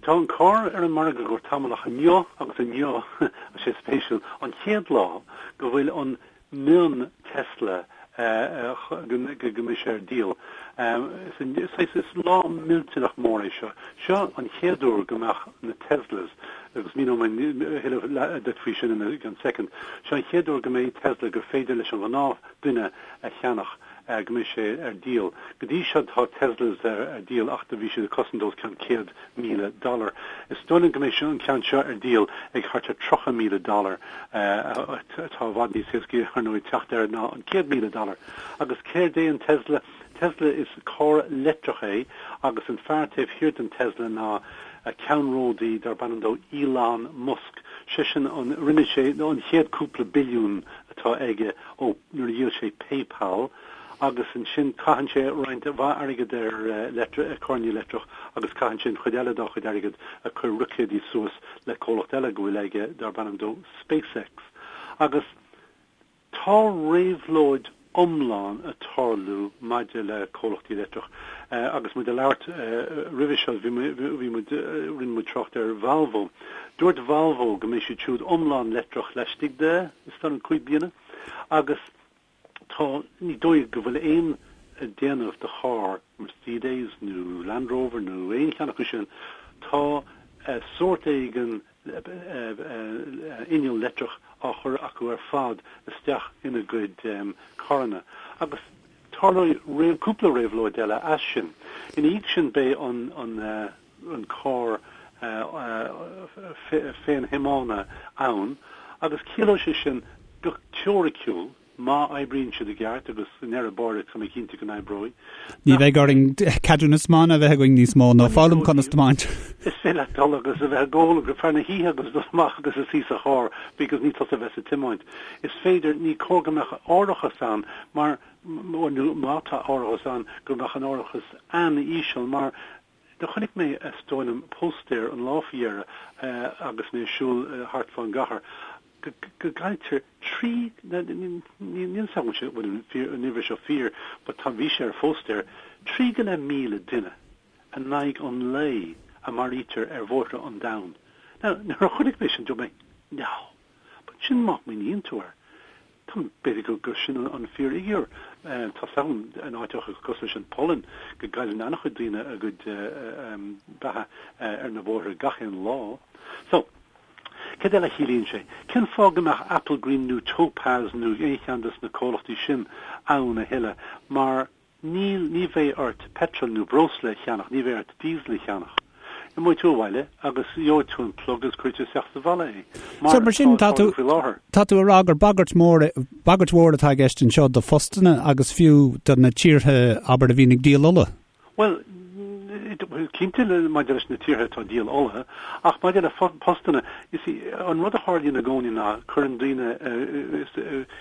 Tá an carr ar an margadh le tamall ach inniu agus inniu, tá sé spéisiúil, an chéad lá go bhfuil an mion Tesla go mbeidh sé ar díol. Is lá millteanach mór é seo. Seo an chéad uair go mbeadh na Teslas, agus míneoidh mé a thuilleadh duit faoi sin i gceann soicind, seo an chéad uair go mbeidh Tesla gur féidir leis an ghnáth duine a cheannach, go mbeidh sé ar díol. Go dtí seo tá Teslas ar díol ach do bhí siad ag cosaint os cionn 100,000 dollar. Is dóigh liom go mbeidh an ceann seo ar díol ag thart ar 30,000 dollar, atá i bhfad níos éascaí ar ndóigh teacht air ná an 100,000 dollar. Agus céard é an Tesla? Tesla is carr leictreach é agus an fear taobh thiar den Tesla ná ceannródaí darb ainm dó Elon Musk. Seisean an, rinne sé an chéad cúpla billiún atá aige ó nuair a dhíol sé PayPal agus ansin caitheann sé roinnt mhaith airgid ar carranna leictreach agus caitheann sé an chuid eile dá chuid airgid ag cur roicéidí suas le comhlacht eile go bhfuil aige darb ainm dó SpaceX. Agus tá réabhlóid iomlán ag tarlú maidir le comhlachtaí leictreach. Agus muid ag labhairt roimhe seo bhí muid, rinne muid trácht ar Volvo. Dúirt Volvo go mbeidh siad siúd iomlán leictreach laistigh de, is dóigh liom, 5 bliana. Agus tá, ní dóigh go bhfuil aon déanamh de charr, Mercedes nó Land Rover nó aon cheann acu sin, tá sórt éigin inneall leictreach á chur acu ar fad isteach ina gcuid carranna. Agus tarlóidh cúpla réabhlóid eile as sin. Ina dhiaidh sin beidh an an carr féinthiomána ann agus ciallóidh sé sin go teoiriciúil, má oibríonn siad i gceart, agus i ndeireadh báire tá mé cinnte go n-oibreoidh, Ní bheidh orainn ceadúnas tiomána a bheith againn níos mó nó foghlaim conas tiomáint. Is féidir leat dul agus a bheith ag ól go feadh na hoíche agus dul amach agus a suí sa charr because ní tusa a bheas ag tiomáint. Is féidir, ní cóir go mbeadh árachas ann mar, nó má tá árachas ann, go mbeadh an árachas an-íseal mar Do chonaic mé, is dóigh liom, póstaer an lá faoi dheireadh agus mé ag siúl thart fán gcathair, go gcailltear 3, níl fhios agam an bhfuil an uimhir seo fíor, but tá, bhí sé ar phóstaer, 3,500 duine in aghaidh an lae a maraítear ar bhóithre an domhain. Now, nuair a chonaic mé sin, dúirt mé, no! But sin má smaoiníonn tú air, tá, b'fhéidir gur, gur sin an fíorfhigiúr. Tá 's agam in áiteacha cosúil leis an Pholainn go gcailleann an-chuid daoine a gcuid beatha ar na bóithre gach aon lá. So, céard eile a chiallaíonn sé? Cén fáth go mbeadh Applegreen nó Topaz nó aon cheann de na comhlachtaí sin ann a thuilleadh? Mar Níl, ní bheidh ort peitreal nó breosla a cheannach, ní bheidh ort diesel a cheannach. Imeoidh tú abhaile agus gheobhaidh tú an plug agus cuirfidh tú isteach sa bhalla é, mar So mar sin, atá tá tú, ag tarlú faoi láthair. tá tú a rá gur bagairt mhór, bagairt mhór atá i gceist anseo do phostanna agus fiú do na tíortha, abair, a bhíonn ag díol ola. Bhuel, cinnte maidir leis na tíortha atá ag díol ola, ach maidir le postanna, you see, an rud a tharlaíonn i gcónaí ná cuireann daoine,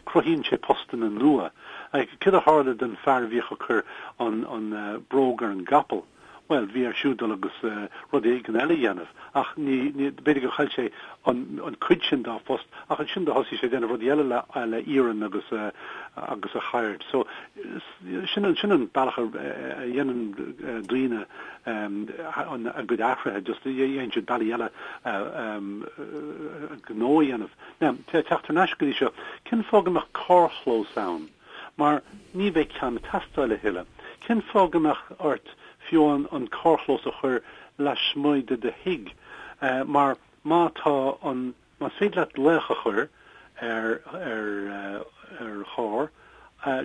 cruthaíonn sé postanna nua. Céard a tharla don fear a bhíodh ag cur an an bróg ar an gcapall? Bhuel, bhí air siúd dul agus rud éigin eile a dhéanamh, ach ní, ní, b'fhéidir gur chaill sé an an cuid sin dá phost, ach ansin do thosaigh sé ag déanamh rudaí eile le le iarann agus agus a cheird. So, sin an, sin an bealach a a dhéanann daoine an a gcuid athruithe, just dhéanann siad bealaí eile gnó a dhéanamh. Now, teacht thar n-ais go dtí seo, cén fáth go mbeadh carrchlós ann? Mar ní bheidh ceann ag teastáil a thuilleadh. Cén fáth go mbeadh ort fiú amháin an carrchlós a chur lasmuigh de do thigh? Mar má tá an, más féidir leat glaoch a chur ar, ar, ar charr,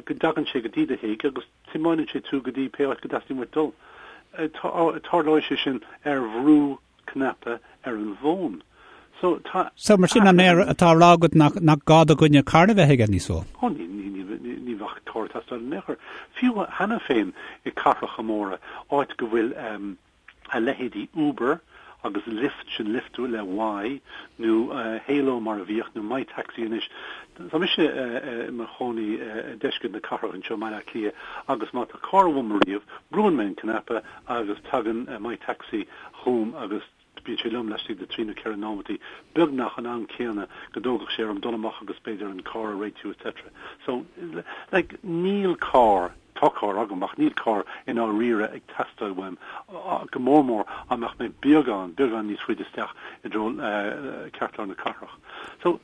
go dtagann sé go dtí do thigh agus tiomáineann sé tú go dtí pé áit go dteastaíonn uait dul. Tarlóidh sé sin ar bhrú cnaipe ar an bhfón. So, tá. So, mar sin, an é atá á rá agat nach, nach gá do dhuine carr a bheith aige níos mó? Ó, ní, ní, ní, ní, ní bheadh carr ag teastáil in aon chor. Fiú cheana féin i cathracha móra, áit go bhfuil um, a leithéidí Uber agus Lyft, sin Lyft le Y, nó uh, Hailo mar a bhíodh, nó MyTaxi anois. Tá mise uh, i mo chónaí uh, i deisceart na cathrach anseo i mBaile Átha Cliath agus má tá carr uaim ariamh, brúann mé an cnaipe agus tagann uh, MyTaxi chugam agus bíonn sé liom laistigh de 3 nó 4 nóimeataí, beagnach an am céanna go dtógfadh sé orm dul amach agus b'fhéidir an carr a réitiú etc. So, like, níl carr. Tá carr agam ach níl carr i ndáiríre ag teastáil uaim, go mór mór dá mbeadh mé beagán, beagán níos faide isteach i dtreo ceartlár na cathrach. So,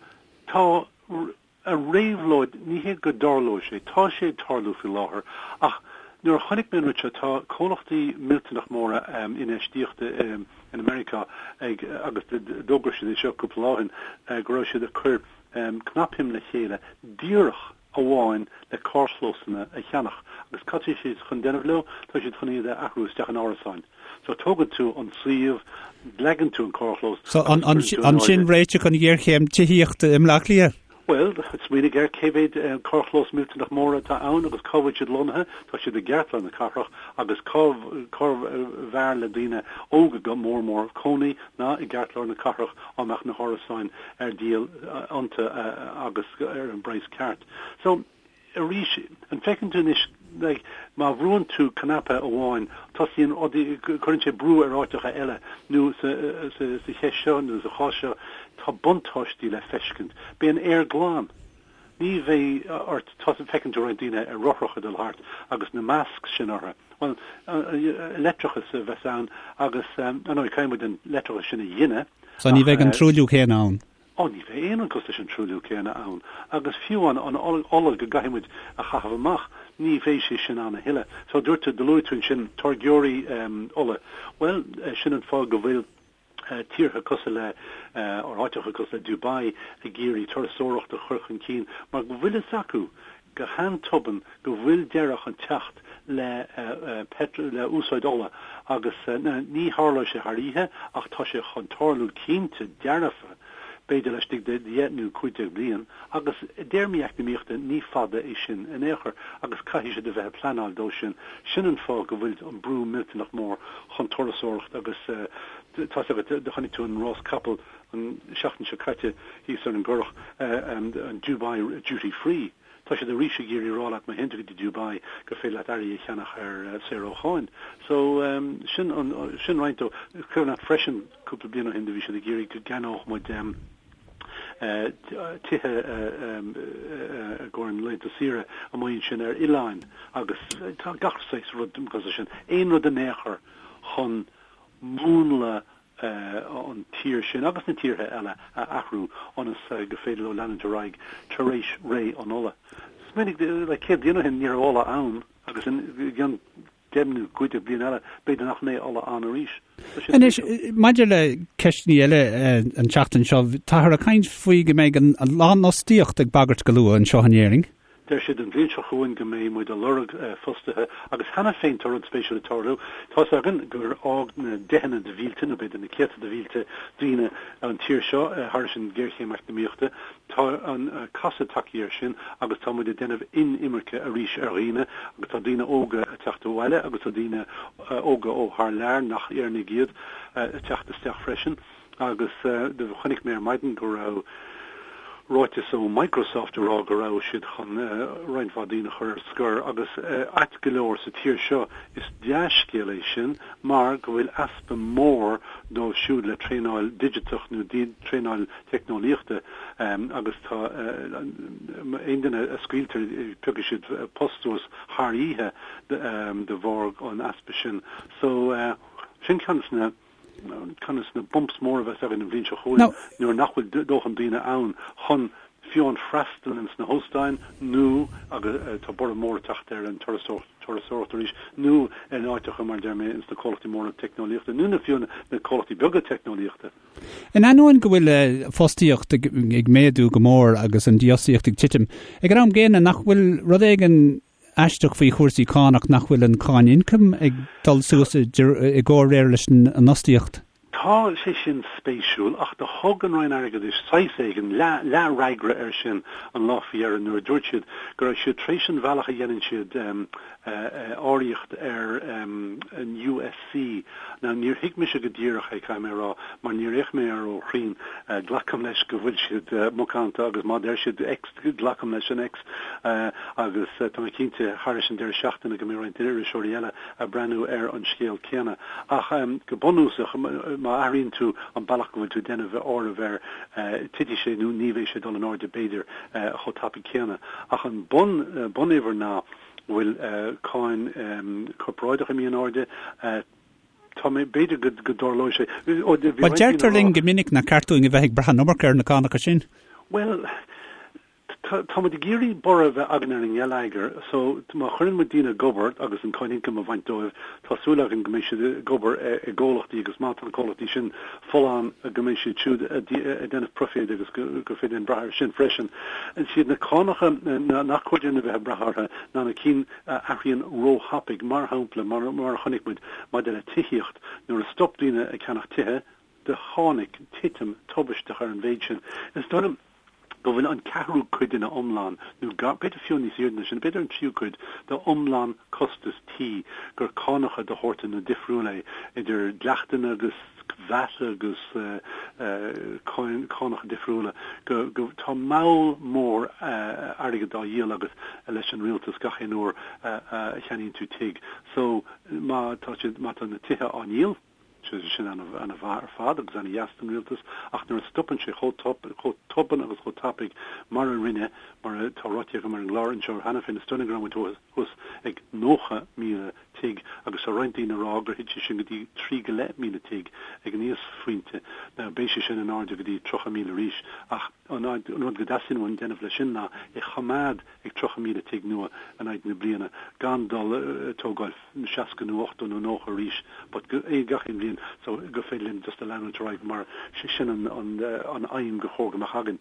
tá an réabhlóid, ní hé go dtarlóidh sé, tá sé ag tarlú faoi láthair ach nuair a chonaic mé an rud seo, tá comhlachtaí millteanach móra infheistíochta in Meiriceá ag, agus d'fhógair siad é seo cúpla lá ó shin, go raibh siad ag cur cnapshuim le chéile díreach amháin le carrchlósanna a cheannach agus cad tá siad chun déanamh leo? Tá siad chun iad a athrú isteach in árasáin. So tógann tú an suíomh, leagann tú an carrchlós So an sin réiteach an ghéarchéim tithíochta i mBleá Cliath? Bhuel, smaoinigh ar cé mhéad carrchlós millteanach mór atá ann agus cá bhfuil siad lonnaithe, tá siad i gceartlár na cathrach agus cá cárbh fhearr le daoine óga go mór mór cónaí ná i gceartlár na cathrach á mbeadh na hárasáin ar díol iontu agus ar an bpraghas ceart. So, arís, an bhfeiceann tú anois, like, má bhrúann tú cnaipe amháin, tosaíonn rudaí, cuireann sé brú ar áiteacha eile, nó sa, sa, sa cheist seo, nó sa chás seo, tá buntáistí le feiscint. Beidh an aer glan. Ní bheidh ort, tá, feiceann tú roinnt daoine ar rothracha ag dul thart agus na masks sin orthu. Bhuel, leictreachas a bheas ann agus, ar ndóigh, caithfidh muid an leictreachas sin a ghineadh. So ní bheidh an truailliú céanna ann. Ó, ní bheidh aon rud cosúil leis an truailliú céanna ann. Agus fiú an an ola go gcaithfidh muid a chaitheamh amach, ní bheidh sé sin ann a thuilleadh. So dúirt tú, do luaigh tú ansin táirgeoirí ola. Bhuel, sin an fáth go bhfuil tíortha cosúil le, or áiteacha cosúil le Dubai ag iarraidh turasóireacht a chur chun cinn mar go bhfuil fhios acu go han-tobann go bhfuil deireadh chun teacht le le úsáid ola agus ní tharlóidh sé thar oíche ach tá sé chun tarlú cinnte dearfa, b'fhéidir laistigh de 10 nó 15 bliain agus i dtéarmaí eacnamaíochta ní fada é sin in aon chor agus caithfidh siad a bheith ag pleanáil dó sin. Sin an fáth go bhfuil an brú millteanach mór chun turasóireacht agus tá's agat, do chonaic tú an rás capall an seachtain seo caite thíos ar an gCurrach, an Dubai Duty Free. Tá siad arís ag iarraidh rá leat má théann tú go dtí Dubai gur féidir leat earraí a cheannach ar saor ó cháin. So sin an, sin roinnt dó. Cuimhin leat freisin cúpla bliain ó shin do bhí siad ag iarraidh go gceannódh muid tithe i gcomhair na laethanta saoire amuigh ansin ar oileáin agus tá gach saghas rud cosúil sin. Aon rud in aon chor chun múnla an tír sin agus na tíortha eile a athrú ionas go féidir leo leanúint ar aghaidh tar éis ré an ola. Smaoinigh, like, 100 bliain ó shin ní raibh ola ann agus i gceann 10 nó 15 bliain eile b'fhéidir nach mbeidh ola ann arís. Anois, maidir le ceisteanna eile an tseachtain seo, táthar ag caint faoi go mbeidh an lánfhostaíocht ag bagairt go luath anseo in Éirinn. Deir siad an bhliain seo chugainn go mbeidh muid ag lorg fostaithe agus cheana féin tá rud spéisiúil ag tarlú. Tá's againn gur fhág na deicheanna de mhílte, nó b'fhéidir na céadta de mhílte daoine an tír seo thairis an ghéarchéim eacnamaíochta. Tá an casadh tagtha air sin agus tá muid ag déanamh inimirce arís ar dhaoine agus tá daoine óga ag teacht abhaile agus tá daoine óga ó thar lear, nach Éireannaigh iad, ag teacht isteach freisin. Agus do chonaic mé ar maidin go raibh ráiteas ó Microsoft ag rá go raibh siad chun roinnt mhaith daoine a chur ar scor agus ait go leor sa tír seo is dea-scéal é sin mar go bhfuil easpa mór dóibh siúd le traenáil digiteach nó traenáil teicneolaíochta agus tá aon duine a scaoiltear piocfaidh siad post suas thar oíche de bharr an easpa sin. So sin ceann de na ceann de na bumps móra a bheas againn an bhliain seo chugainn nuair nach bhfuil dóthain daoine ann chun fiú amháin freastal ins na hóstáin nó, agus tá borradh mór ag teacht ar an turasóireacht arís, nó in áiteacha mar a deir mé ins na comhlachtaí móra teicneolaíochta nó na fiú na comhlachtaí beaga teicneolaíochta. In ainneoin go bhfuil fostaíocht ag méadú go mór agus an dífhostaíocht ag titim, ag an am gcéanna nach bhfuil rud éigin aisteach faoi chúrsaí cánach nach bhfuil an cáin ioncaim ag dul suas i gcomhréir leis an fhostaíocht. Tá sé sin spéisiúil, ach do thug an Roinn Airgeadais saghas éigin, leath-fhreagra air sin an lá faoi dheireadh nuair a dúirt siad go raibh siad tar éis an bhealach a dhéanann siad áiríocht ar an USC. Now níor thuig mise go díreach é, caithfidh mé a rá, mar níor fhéach mé air ró-chruinn. Glacaim leis go bhfuil siad macánta agus má deir siad X, Glacaim leis an X agus tá mé cinnte thairis an deireadh seachtaine go mbeidh roinnt iriseoirí eile ag breathnú ar an scéal céanna. Ach go bunúsach, má athraíonn tú an bealach go bhfuil tú ag déanamh áireamh air, titfidh sé nó ní bheidh sé ag dul in airde b'fhéidir chomh tapaidh céanna. Ach an bun, bunuimhir ná. Go bhfuil cáin corparáideach imithe in airde. Tá mé, b'fhéidir go dtarlóidh sé. Bhuel, deirtear linn go minic nach ceart dúinn a bheith ag brath an iomarca ar na cánacha sin. Bhuel, tá muid ag iarraidh borradh a bheith againn ar an ngeilleagar so má chuireann muid daoine ag obair agus an cáin ioncaim a bhaint dóibh, tá súil againn go mbeidh siad ag obair i gcomhlachtaí agus má tá na comhlachtaí sin folláin go mbeidh siad siúd ag déanamh proiféid agus gur féidir linn brath air sin freisin. Is iad na cánacha nach cóir dúinn a bheith ag brath orthu ná na cinn a athraíonn róthapaidh, mar shampla, mar a chonaic muid maidir le tithíocht, nuair a stop daoine ag ceannach tithe, do tháinig titim tubaisteach ar an mhéid sin. Is dóigh liom go bhfuil an ceathrú cuid ina iomlán, nó b'fhéidir fiú níos airde ná sin, b'fhéidir an tríú cuid d'iomlán costas tí gur cánacha de shórtanna difriúla é, idir dleachtanna agus VAT agus cánacha difriúla, go, go, tá moll mór airgid á dhíol agat leis an rialtas gach aon uair a cheannaíonn tú tigh. So, má tá siad, má tá na tithe á ndíol, Sin ana-mhaith ar fad agus ana-dheas don rialtas ach nuair a stopann sé chomh tobann agus chomh tapaidh mar a rinne, mar atá ráite agam ar an gclár anseo cheana féin, is dóigh liom go raibh muid thuas ag 90,000 tigh agus tá roinnt daoine ag rá gur thit sé sin go dtí 3,500 tigh ag an íosphointe. Now beidh sé sin in airde go dtí 30,000 arís ach an rud go dteastaíonn uainn déanamh leis sin ná é choimeád ag 30,000 tigh nua in aghaidh na bliana gan dul ag tógáil 60 nó 80 nó 90 arís but gach aon bhliain so gur féidir linn just a leanúint ar aghaidh mar sin an aidhm gur chóir go mbeadh againn.